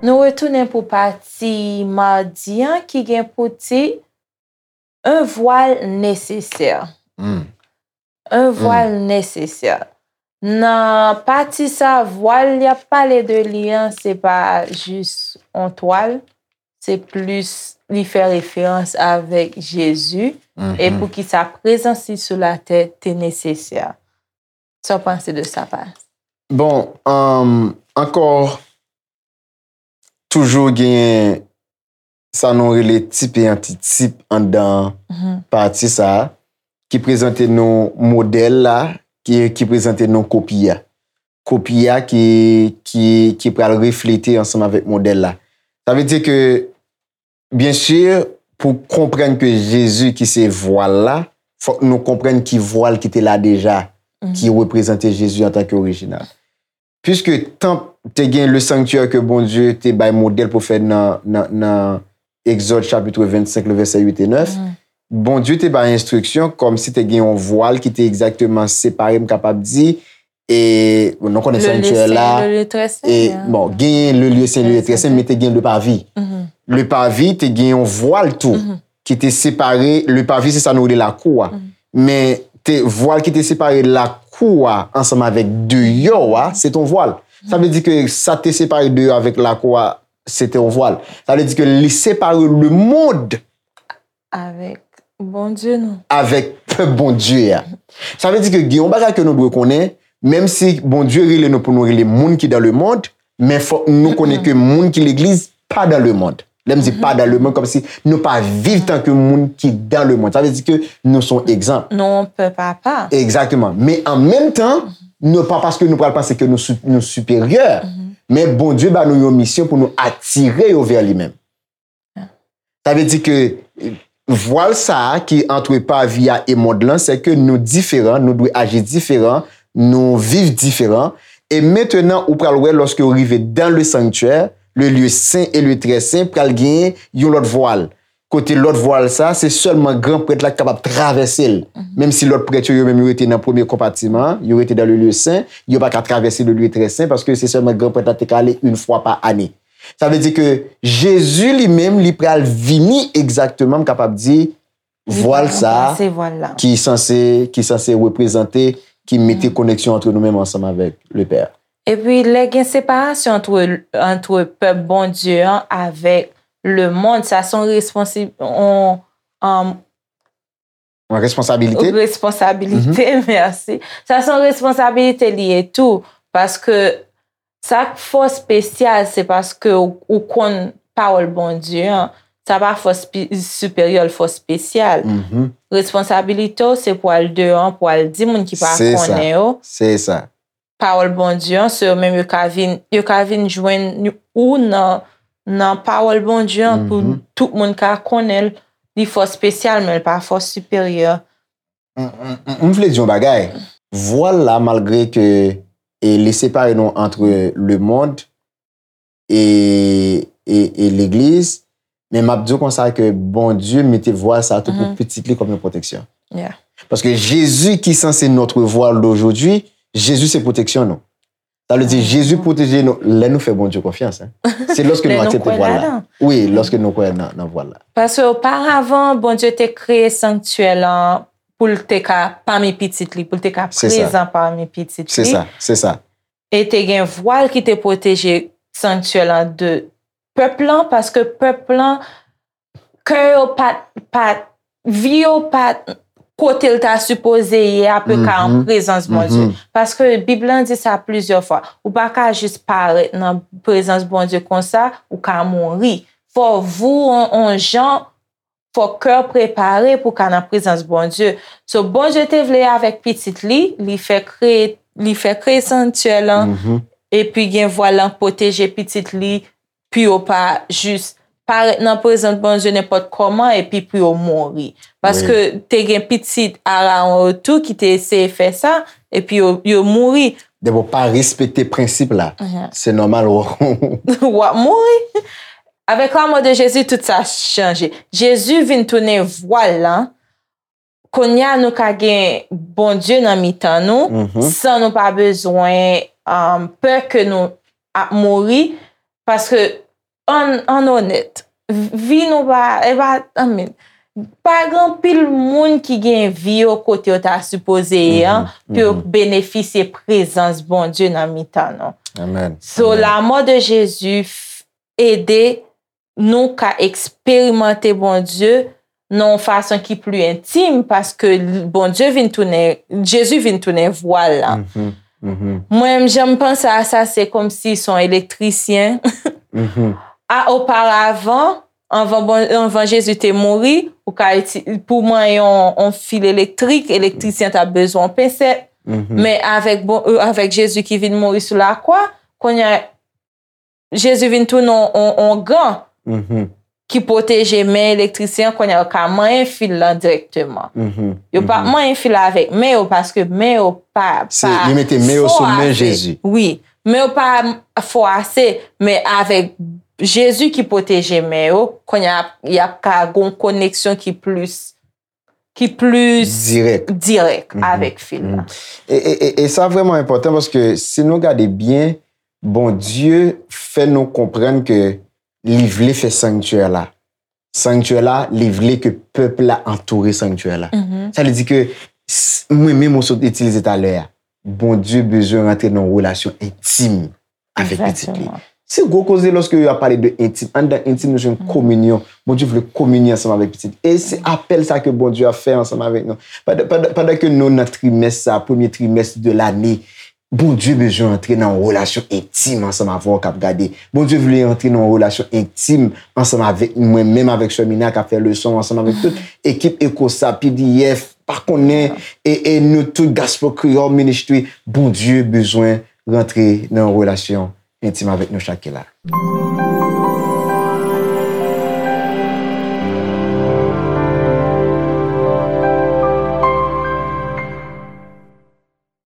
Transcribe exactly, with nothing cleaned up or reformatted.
Nou retounen pou pati madi an ki gen pou tit Un voile nécessaire. Un voile nécessaire. Nan pati sa, vwal y ap pale de li an, se pa jis on twal, se plis li fè referans avèk Jezi, e poukisa prezans li sou latè te nesesè. Sa w panse de sa, Pas? Bon, um, ankò, toujou genyen sa nou rele tip e antitip anndan pati sa a, ki prezante nou modèl la, ki, ki prezante nou kopi a. Kopi a ki, ki, ki pral reflete ansanm avèk modèl la. Sa vle di ke, byen si, pou konprann ke Jezi ki se vwal la, fòk nou konprann ki vwal ki te la deja, ki reprezante Jezi antanke orijinal. Piske tanp te gen le sanctuaire ke Bondye te bay modèl pou fè nan, nan, nan Egzòd chapit vennsenk, le vèsè uit e nèf, Bondye te bay enstriksyon kòmsi te gen yon vwal ki te egzakteman separe, m kapab di, e nou konnen sanctuaire la, e, bon, genyen le lieu saint, le lieu très saint, men te gen le parvis. Le parvis te gen yon vwal tou ki te separe, le parvis se sa nou rele lakou a. Men te vwal ki te separe lakou a ansanm avèk deyò a, se te yon vwal. Sa vle di ke sa te separe deyò avèk lakou a, se te yon vwal. Sa vle di ke li separe lemonn avèk Bondye nou. Avèk pèp Bondye a. Sa vle di ke gen yon bagay ke nou dwe konnen, menm si Bondye rele nou pou nou rele moun ki dan lemonn, men fòk nou konnen ke moun ki legliz pa dan lemonn. Lè m di pa dan lemonn, kòmsi nou pa viv tanke moun ki dan lemonn. Sa vle di ke nou se yon egzanp. Nou yon pèp apa. Egzakteman. Men an menm tan, nou pa paske nou pral panse ke nou, nou siperyè, men Bondye ba nou yon misyon pou nou atire yo vè li menm. Sa vle di ke vwal sa a ki antre pavi a e mond lan, se ke nou diferan, nou dwe aji diferan, nou viv diferan. E mentenan, ou pral wè, lòske ou rive dan le sanctuaire, le lieu saint et le très saint, pral genyen yon lòt vwal. Kote lòt vwal sa, se sèlman gran prèt la ki kapab travèse l. Menm si lòt prèt yo, yo menm, yo rete nan premye konpatiman an, yo rete dan le lieu saint, yo pa ka travèse le lieu très saint, paske se sèlman gran prèt la te ka ale yon fwa pa ane. Sa vle di ke Jezi li menm, li pral vini egzakteman, m kapab di, vwal sa a ki sanse, ki sanse reprezante, ki mete koneksyon antre nou menm ansanm avèk le Pè. Epi lè gen separasyon antre, antre pèp Bondye an avèk lemonn, sa se yon responsi, yon, um, Yon responsabilite? Responsabilite, mèsi. Sa se yon responsabilite li ye tou, paske sa k fò espesyal, se paske ou, ou konn pawòl Bondye an, sa pa fò siperyè, l fò espesyal. Responsabilite w, se pou al deyò an, pou al di moun ki pa konnen yo. Se sa. Pawòl Bondye an, se yo menm yo ka vin, yo ka vin jwenn ou nan, nan pawòl Bondye an pou tout moun ka konnen l. Li fò espesyal, men l pa fò siperyè. M, m, m, m vle di yon bagay. Vwal la, malgre ke, e, li separe nou antre lemonn e, e, e legliz, men m ap di w konsa ke Bondye mete vwal sa a tou pou pitit li kòm yon pwoteksyon. Paske Jezi ki sanse notre voile d'aujourd'hui, Jezi se pwoteksyon nou. Sa vle di, Jezi pwoteje nou lè nou fè Bondye konfyans, en. Se lòske nou aksepte vwal la. Wi, lòske nou kwè nan, nan vwal la. Paske oparavan, Bondye te kreye sanktyè lan pou l te ka pami pitit li, pou l te ka prezan pami pitit li. Se sa, se sa. E te gen vwal ki te pwoteje sanktyè lan de pèp lan, paske pèp lan, kè yo pa t, pa t, vi yo pa t kote l ta sipoze ye a, pou yo ka an prezans Bondye. Paske Bib lan di sa plizyè fwa. Ou pa ka jis parèt nan prezans Bondye konsa, ou ka mouri. Fò vou on, on jan, fò kè w prepare pou w ka nan prezans Bondye. So, Bondye te vle avèk pitit li, li fè kreye, li fè kreye sanktyè lan, epi gen vwal lan pwoteje pitit li, pou yo pa jis parèt nan prezans Bondye nenpòt kòman epi pou yo mouri. Paske te gen pitit Arawon yo tou ki te eseye fè sa, epi yo, yo mouri. Depi w pa respekte prensip la, se nòmal w ap mouri. Avec la mort de Jésus, tout sa chanje. Jezi vin tounen vwal lan Kounye a nou ka gen Bondye nan mitan nou, Mhm. san nou pa bezwen um, pè ke nou ap mouri, paske an, an onèt, vi nou pa, e pa, I mean, pa gen anpil moun ki gen vi yo kote yo ta sipoze ye an, pou yo benefisye prezans Bondye nan mitan nou. Amen. So, lanmò de Jezi f- ede nou ka eksperimante Bondye nan yon fason ki pli entim, paske l- Bondye vin tounen, Jezi vin tounen vwal la. Mhm, mhm, Mwen menm, jan m panse a sa, se kòmsi se yon elektrisyen. mhm. A, oparavan, anvan, bon, anvan Jezi te mouri, ou ka iti- pou manyen yon, yon fil elektrik, elektrisyen t ap bezwen yon pensèt. Mhm. Men avèk, bon, euh, avèk Jezi ki vin mouri sou lakwa, kounye a, Jezi vin tounen yon, yon, yon gan Mhm, ki pwoteje men elektrisyen an, kounye a yo ka manyen fil lan dirèkteman. mhm, Yo pa mhm. manyen fil avèk men yo, paske men yo pa, Se- pa yo mete men yo sou fò men ase. Jezi. Wi, men yo pa fò ase, men avèk Jezi ki pwoteje men yo, kounye a y ap ka gen yon koneksyon ki plis, ki plis Dirèk. dirèk Mhm. Avèk fil la. E, e, e, e sa vrèman enpòtan paske si nou gade byen, Bondye fè nou konprann ke li vle fè sanktyè la. Sanktyè la, li vle ke pèp la antoure sanktyè la. Mhm. Sa vle di ke s- mwen menm ou sot itilize talè a, Bondye bezwen rantre nan yon relasyon entim avèk pitit li. Egzakteman. Se gwo koze lòske yo ap pale de entim. Anndan entim, nou jwenn kominyon. Bondye vle kominyon ansanm avèk pitit. E se apèl sa ke Bondye ap fè ansanm avèk nou. Pandan, pandan, pandan ke nou nan trimès sa, premye trimès de lane, Bondye bezwen antre nan yon relasyon entim ansanm avè w k ap gade. Bondye vle antre nan yon relasyon entim ansanm avèk mwen, menm avèk sè Mina k ap fè leson, ansanm avèk tout ekip Ekosa, P D F, pa konnen, e, e nou tout Gospel Creole Ministry. Bondye bezwen rantre nan yon relasyon entim avèk nou chak ki la.